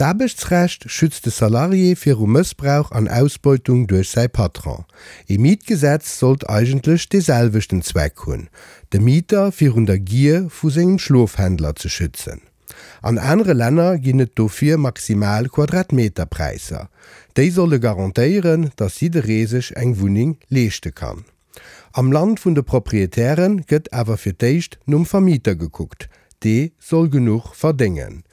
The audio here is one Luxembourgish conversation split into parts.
D'Aarbechtsrecht schützt de Salarié viru Mëssbrauch an Ausbeutung duerch säi Patron. Ee Mietgesetz sollt eigentlech dee selwechten Zweck hunn, de Mieter virun der Gier vu sengem Schlofhändler ze schützen. An anere Länner ginn et dofir maximal Quadratmeterpräisser. Déi solle garantéieren, datt jidderee sech eng Wunneng leeschte kann. Am Land vun de Proprietäre gëtt awer fir d'éischt nom Vermieter gekuckt, dee soll genuch verdéngen.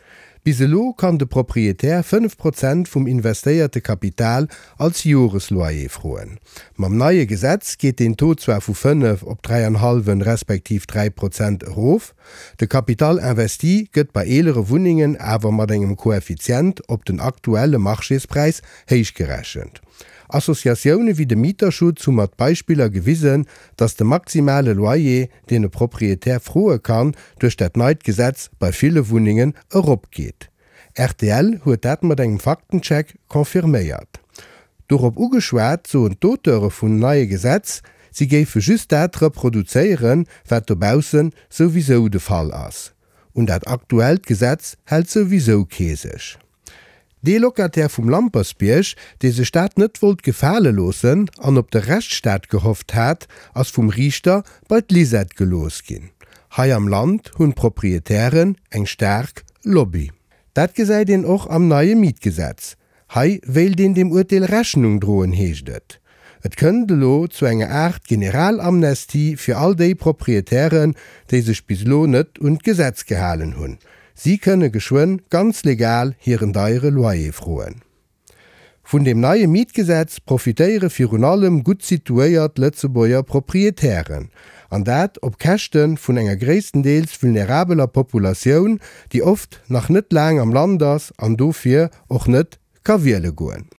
Bis elo kann de Proprietär 5 Prozent vum investéierte Kapital als Joresloyer froen. Mam neie Gesetz geet deen Taux zwar vu 5 op 3 an hallwen respektiv 3 Prozent erof, de Capital investi gëtt bei eelere Wunnengen awer mat engem Koeffizient op den aktuelle Marchéspräis héichgerechent. Associatioune wéi de Mieterschutz hu mat Beispiller gewisen, datt de maximale Loyer, deen e Proprietär froe kann, duerch dat neit Gesetz bei ville Wunnengen eropgeet. Rtl huet dat mat engem Faktencheck confirméiert. Dorop ugeschwat, soen d'Auteure vum neie Gesetz, si géife just dat reproduzéieren, wat dobausse souwisou de Fall ass. Un dat aktuellt Gesetz hält souwisou kee sech. Dee Locataire vum Lampersbierg, dee sech dat net wollt gefale loossen an op de Rechtsstaat gehofft hat, ass vum Riichter bei d'Lisette gelooss ginn. Hei am Land hunn d'Proprietären eng staark Lobby. Dat gesäit een och am neie Mietgesetz. Hei wéilt een deem Urteel Rechnung droen, heescht et. Et kënnt elo zu enger Aart Generalamnestie fir all déi Proprietären, déi sech bis elo net un d'Gesetz gehalen hunn. Si kënne geschwënn ganz legal hiren deiere Loyer froen. Vun deem neie Mietgesetz profitéiere virun allem gutt situéiert Lëtzebuerger Proprietären. An dat op Käschte vun enger gréisstendeels vulnerabeler Populatioun, déi oft nach net laang am Land ass an dofir och net ka wiele goen.